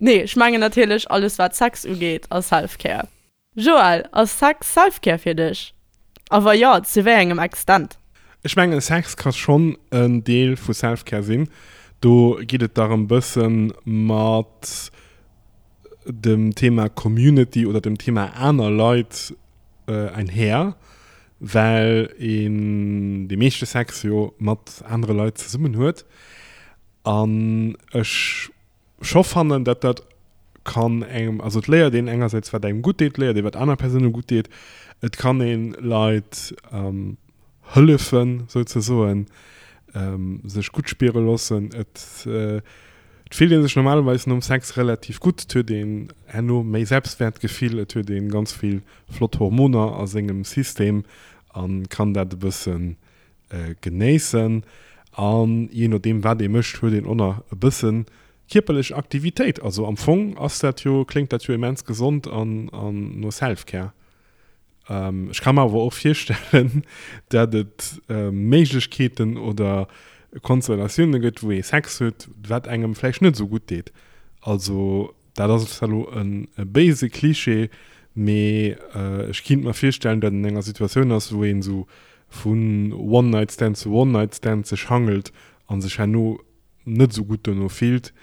Nee, ech mengen natierlech alles wat Sex ugeet a Self-Care. Joël, ass Sex Self-Care fir dech? A wa jo, zu wéi engem Extent? Ech mengen Sex ka schonn en Deel vu Self-Care sinn. Do geet et da rëm bësse mat dem Thema Community oder dem Thema aner Leit einher, well een dee meeschte Sex jo mat anere Leit zesummen huet. An ech scho fannen, dat dat kann engem, also et léiert een engersäits wat engem gutt deet, léiert ee wat aner Persoune gutt deet, et kann ee Leit hëllefen souzesoen, sech gutt spiere loossen, et et fillt ee sech normalerweis nom Sex relativ gutt, et huet een herno méi Selbstwäertgefill, et huet ee ganz vill flott Hormoner a sengem System a kann dat e bëssen genéissen an jee nodeem wat ee mécht huet een och nach e bësse kierperlech Aktivitéit. Also am Fong ass dat jo, kléngt dat jo immens gesond an an no Self-Care. Ech ka mer awer och virstellen, dat et Méiglechkeeten oder Konstellatioune gëtt wou ee Sex huet wat engem vläicht net esou gutt deet. Also Dat ass zwar elo e béise Cliché, mee ech kinnt mer virstellen, datt een an enger Situatioun ass, wou een esou vun One-Night-Stand zu One-Night-Stand sech hangelt a sech herno net esou gutt dono fillt,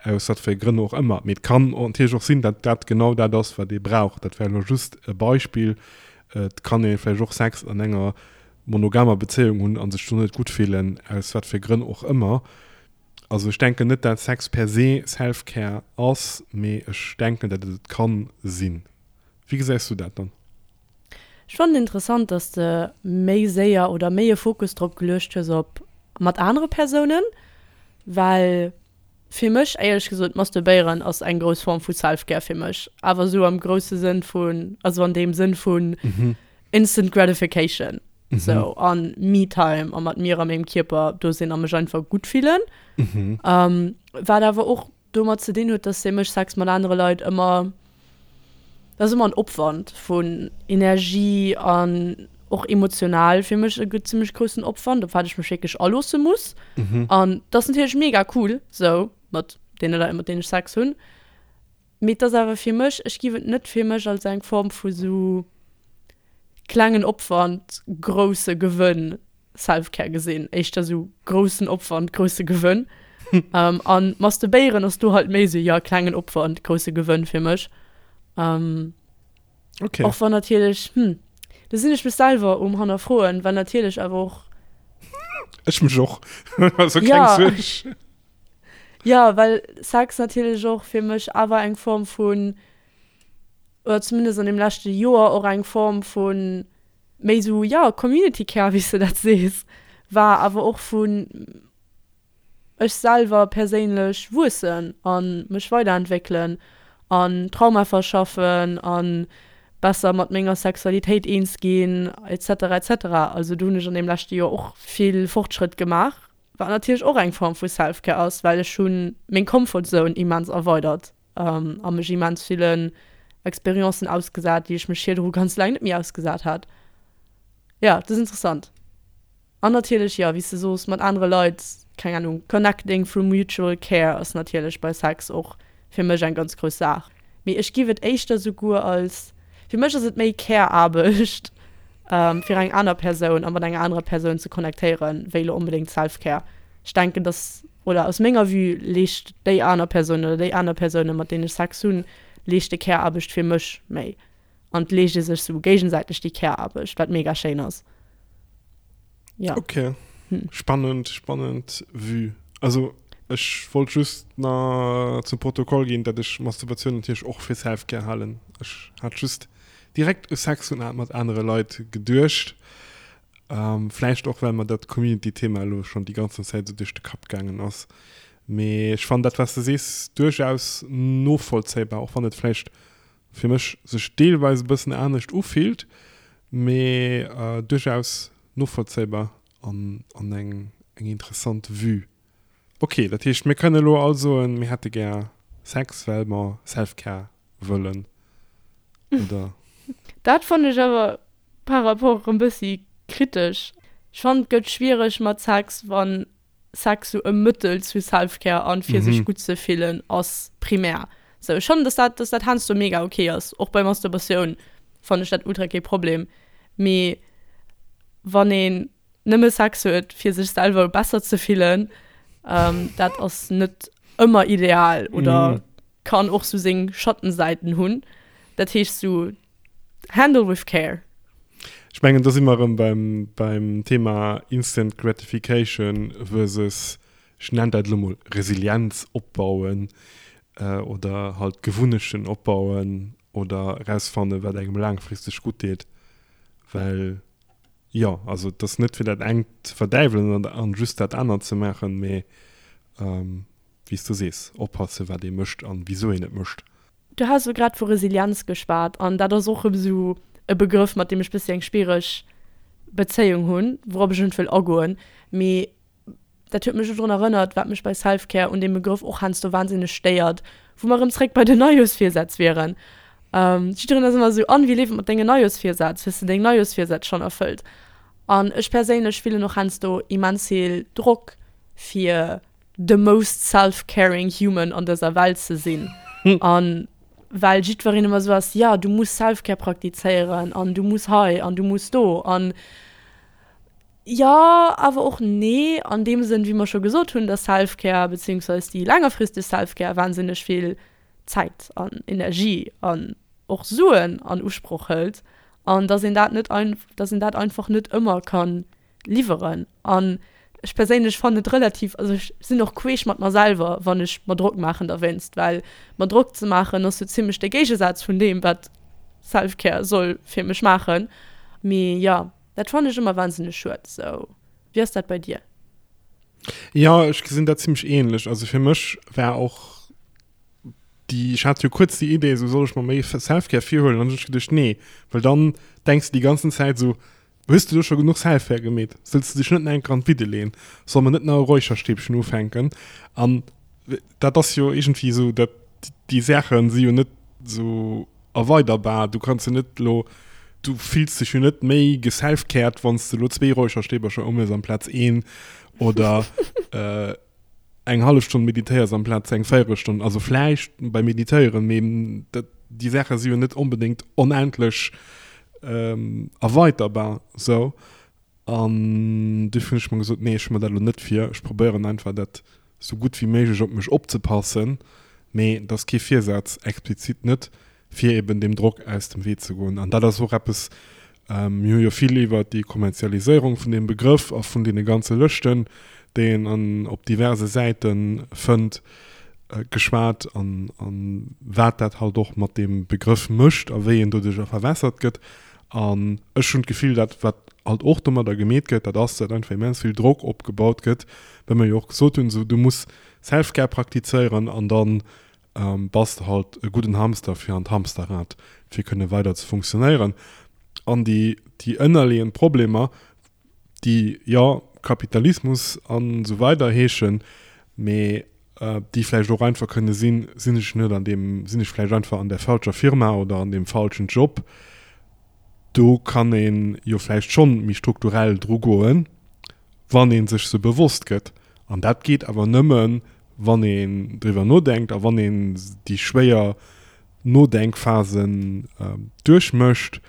aus wat fir Grënn och ëmmer. Mee et kann natierlech och sinn, datt dat genau dat ass, wat ee brauch. Dat war elo just e Beispill. Et kann ee vläicht och Sex an enger monogamer Bezéiung hunn a sech do net gutt fillen, aus wat fir Grënn och ëmmer. Also ech denken net dat Sex per se Self-Care ass, mee ech denken dat et et kann sinn. Wéi gesäis du dat dann? Ech fannen interessant dass de méi séier oder méi e Fokus drop geluecht hues op mat anere Persounen, well. Fir mech, éierlech gesot, masturbéieren ass eng grouss Form vu Self-Care fir mech, awer esou am grousse Sënn vun, also an deem Sënn vun Instant Gratification, sou an Me-Time a mat mir a mengem Kierper do sinn a mech einfach gutt fillen. Wat awer och domat ze dinn huet, dass fir mech Sex mat anere Leit ëmmer, dat ass ëmmer en Opwand vun Energie an och emotional fir mech e zimmlech groussen Opwand, op wat ech mech wierklech aloosse muss. An dat ass natierlech mega cool sou mat deene Leit, mat deenen ech Sex hunn. Mee et ass awer fir mech, ech giff et net fir mech als eng Form vu sou klengen Opwand, grousse Gewënn Self-Care gesinn. Éischter sou groussen Opwand, grousse Gewënn. An Masturbéieren ass do halt méi sou, jo, klengen Opwand, grousse Gewënn fir mech. Okay. Och wann natierlech, hm, do sinn ech mech selwer um Hannerfroen, well natierlech awer och. Ech mech och. Also keng Suerg. Jo, well Sex natierlech och fir mech awer eng Form vun, oder zumindest an deem leschte Joer och eng Form vu méi esou, jo, Community Care, wéi s de dat sees, war, awer och vun ech selwer perséinlech wuessen a mech weiderentwéckelen an Trauma verschaffen a besser mat menger Sexualitéit eens ginn et cetera et cetera. Also do hunn ech an deem leschte Joer och vill Fortschrëtt gemaach. Wat natierlech och eng Form vu Self-Care ass, well ech hu meng Comfort Zone immens erweidert a mech immens villen Experiencen ausgesat, déi ech mech virdru ganz laang net méi ausgesat hat. Jo, dat ass interessant. An natierlech, jo, wéi s de soos, mat anere Leit, keng Anung, connecting through mutual care ass natierlech bei Sex och fir mech eng ganz grouss Saach. Mee ech giff et éischter souguer als, fir mech ass et méi Care-Aarbecht fir eng aner Persoun a mat enger anerer Persoun ze connectéieren, wéi elo onbedéngt Self-Care. Ech denken, dass, oder aus menger Vue leescht déi aner Persoun oder déi aner Persounen, mat deenen ech Sex hunn, leeschte Care-Aarbecht fir mech méi. An et leescht ee sech sou géigesäiteg déi Care-Aarbecht, wat mega schéin ass. Ja. Okay. Hm. Spannend, spannend Vue. Also ech wollt just na zum Protokoll ginn, dat ech Masturbation natierlech och fir Self-Care halen. Ech hat just direkt u Sex hunn mat anere Leit geduecht. Ähm, vläicht och well mer dat Community-Thema elo schonn déi ganzen Zäit esou duerch de Kapp gaangen ass. Mee ech fannen dat, wat s de sees, duerchaus novollzéibar, och wann et vläicht fir mech sech deelweis e bëssen anescht ufillt, mee duerchaus novollzéibar an an eng eng interessant Vue. Ok, dat heescht mir kënne elo all soen, mir hätte gär Sex well mer Self-Care wëllen, oder? Dat fannen ech awer par rapport erëm bëssi kritesch. Ech fannen et gëtt schwiereg mat Sex wann Sex sou e Mëttel zu Self-Care an fir sech gutt ze fillen ass primär. Sou ech fannen dass dat dass dat heiansdo mega ok ass, och bei Masturbatioun fannen ech dat ultra kee Problem, mee wann een nëmme Sex huet fir sech selwer besser ze fillen, dat ass net ëmmer ideal oder kann och sou seng Schattenseiten hunn. Dat heescht sou Handle with care. Ech mengen, do si mer erëm beim, beim Thema Instant Gratification versus, ech nennen dat elo mol, Resilienz opbauen oder halt Gewunnechten opbauen oder erausfannen, wat engem laangfristeg gutt deet. Well, jo, also et ass net fir dat engt ze verdäiwelen an just dat anert ze maachen, mee wéi s du sees, oppassen, wat ee mécht an wisou een et mécht. Du has elo grad vu Resilienz geschwat an dat ass och erëm esou e Begrëff, mat deem ech bëssi eng schwiereg Bezéiung hunn, wourop ech net wëll agoen. Mee dat huet mech elo drun erënnert, wat mech bei Self-Care un deem Begrëff och heiansdo wahnsinneg stéiert, wou mer erëm zréck bei den Neijooschvirsätz wieren. Jiddereen ass ëmmer esou, An, wéi leeft et mat dengen Neijooschvirsätz? Hues de deng Neijooschvirsätz schonn erfëllt? An ech perséinlech fillen och heiansdo immens vill Drock, fir the most self-caring human an dëser Welt ze sinn. An well jiddwereen ëmmer esou ass, ja, du muss Self-Care praktizéieren an du muss hei an du muss do. An jo, awer och nee, an deem Sënn, wéi mer scho gesot hunn, dass Self-Care beziehungsweise déi längerfristeg Self-Care wahnsinneg vill Zäit an Energie an och Suen an Usproch hëlt an dass een dat net, dass een dat einfach net ëmmer kann liwweren. An ech perséinlech fannen et relativ, also ech sinn och queesch mat mer selwer, wann ech mer Drock maachen derwéinst, well mer Drock ze maachen ass sou zimmlech de Géigesaz vun deem, wat Self-Care soll fir mech maachen. Mee jo, dat fannen ech ëmmer wahnsinneg schued. Sou, wéi ass dat bei dir? Jo, ech gesinn dat zimmlech ähnlech. Also fir mech war och déi, ech hat jo kuerz déi Idee, esou soll ech mer méi Selfcare virhuelen, an dann hunn ech geduecht, nee, well dann denks de déi ganzen Zäit esou, hues de elo scho genuch Selfcare gemeet, sollst de dech net nach eng Kéier an d'Bidde leeën, soll mer net nach e Räucherstäbchen ufänken? An dat ass jo iergendwéi esou, dat déi Saache si jo net esou erweiderbar. Du kanns jo net elo, du fills dech jo net méi geselfcared, wann s de elo zwee Räucherstäbercher ëmhues amplaz een oder eng hallef Stonn meditéiers amplaz eng Véierelstonn. Also vläicht beim Meditéieren, mee dat, déi Saache si jo net onbedéngt onendlech erweiterbar esou. An duerfir hunn ech mer gesot, nee, ech hu mer dat elo net vir. Ech probéieren einfach, dat sou gutt wéi méiglech op mech opzepassen. Mee dat ass kee Virsaz, explizit net, fir eben deem Drock aus dem Wee ze goen. An dat ass och eppes, mir hu jo vill iwwert déi Kommerzialiséierung vun deem Begrëff a vun deene ganze Lëschten, déi een an op diverse Säite fënnt, geschwat an wat dat halt och mat deem Begrëff mécht a wéi en doduercher verwässert gëtt. An ech hunn d'Gefill, dat wat halt och domadder gemeet gëtt, dat ass, datt einfach immens vill Drock opgebaut gëtt, well mer jo och gesot hunn, esou du muss Self-Care praktizéieren an dann bass de halt e gudden Hamster fir an d'Hamsterrad, fir kënne weider ze funktionéieren. An déi, déi ënnerleeënd Problemer, déi, jo, Kapitalismus an esou weider heeschen, mee déi vläicht och einfach kënne sinn, sinn ech net an deem, sinn ech vläicht einfach an der falscher Firma oder an deem falschen Job. Do kann ee jo vläicht schonn méi strukturell dru goen, wann ee sech se bewosst gëtt. An dat geet awer nëmmen, wann een driwwer nodenkt a wann een déi schwéier Nodenkphasen duerchmécht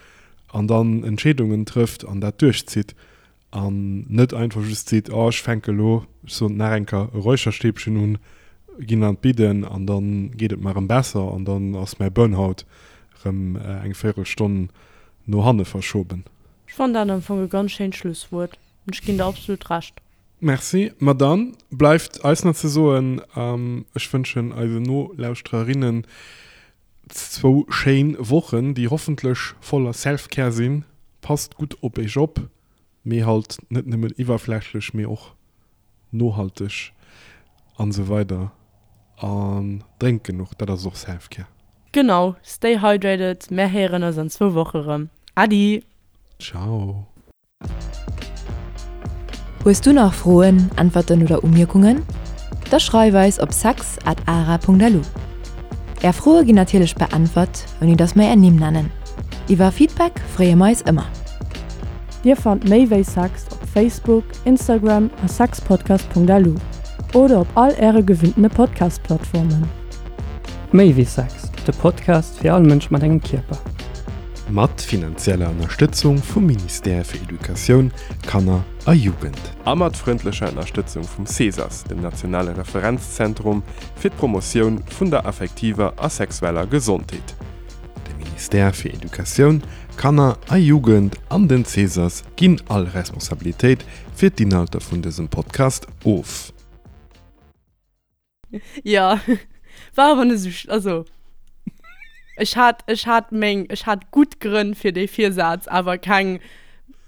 an dann Entscheedungen trëfft an dat duerchzitt. An net einfach just seet, oh ech fänke elo, ech soen et nach eng Kéier, e Räucherstäbchen un, ginn an d'Bidden an da geet et mer erëm besser an dann ass mäi Burnout erëm eng Véierelstonn no hanne verschoben. Ech fannen dat am Fong e ganz schéint Schlusswuert an ech ginn der absolut Recht. Merci. Ma dann bleift eis nach ze soen, ech wënschen eisen Nolauschtererinnen zwou schéin Wochen, déi hoffentlech voller Self-Care sinn. Passt gutt op iech op, mee halt net nëmmen iwwerflächlech, mee och nohalteg an esou weider An drénkt genuch, dat ass och Self-Care. Genau, stay hydrated, mär héieren eis an zwou Woche rëm. Adi! Ciao! Hues du nach Froen, Äntwerten oder Umierkungen? Da schreif eis op sex at ara.lu. Är Froe ginn natierlech beäntwert, ouni dass mer är Nimm nennen. Iwwer Feedback freeë mer eis ëmmer. Dir fannt méi wéi Sex op Facebook, Instagram a sexpodcast.lu oder op all äre gewinntene Podcast-Plattformen. Méi wéi Sex, de Podcast fir all Mënsch mat engem Kierper. Mat finanzieller Ënnerstëtzung vum Ministère fir Educatioun, Kanner a Jugend. A mat frëndlecher Ënnerstëtzung vum CESAS, dem nationale Referenzzentrum fir d'Promotioun vun der affektiver a sexueller Gesondheet. De Ministère fir Educatioun, Kanner a Jugend an den CESAS ginn all Responsabilitéit fir d'Inhalter vun dësem Podcast of. Ja, war awer net esou, also ech hat, ech hat meng, ech hat gutt Grënn fir dee Virsaz, awer keng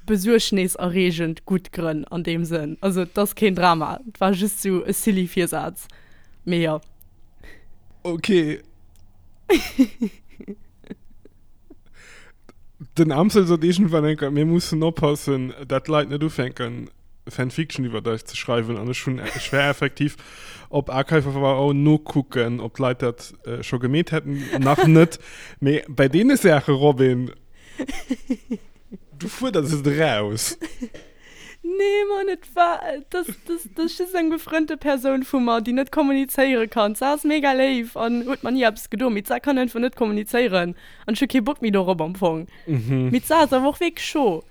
besuergneserreegend gutt Grënn an deem Sënn. Also et ass keen Drama, et war just esou e silly Virsaz, mee jo. Ok. Den Amsel sot iergendwann eng Kéier, mir mussen oppassen, dat d'Leit net ufänken, Fanfiction iwwert eis ze schreiwen. An ech hunn, ech war effektiv op Archive of Our Own nokucken, ob d'Leit dat äh, scho gemeet hätten. Nach net. Mee bei deene Saache, Robin, du fuerders et eraus. Nee, Mann, et war, das, das, das ass just eng befrënnte Persoun vu mer, déi net kommunizéiere kann. D'Sar ass mega léif an huet mer ni eppes gedo, mee d'Sar kann einfach net kommunizéieren an ech hu kee Bock méi dorop am Fong. Mee d'Sar ass awer och wierklech scho.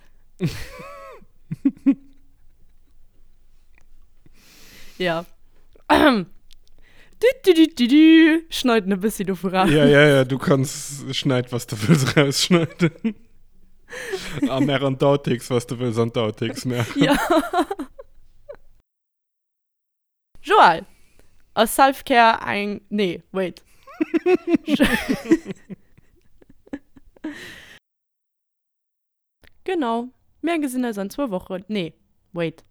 Ja. Du, du, du, du, du. Schneiden e bëssi dovu raus. Ja, ja, ja, du kanns schneid, was du wëlls rausschneiden. A mer an d'Outtakes, was du wëlls an d'Outtakes maachen. Ja. Joël, ass Self-Care eng, nee, wait. Genau, mir gesinn eis an zwou Wochen, nee, wait.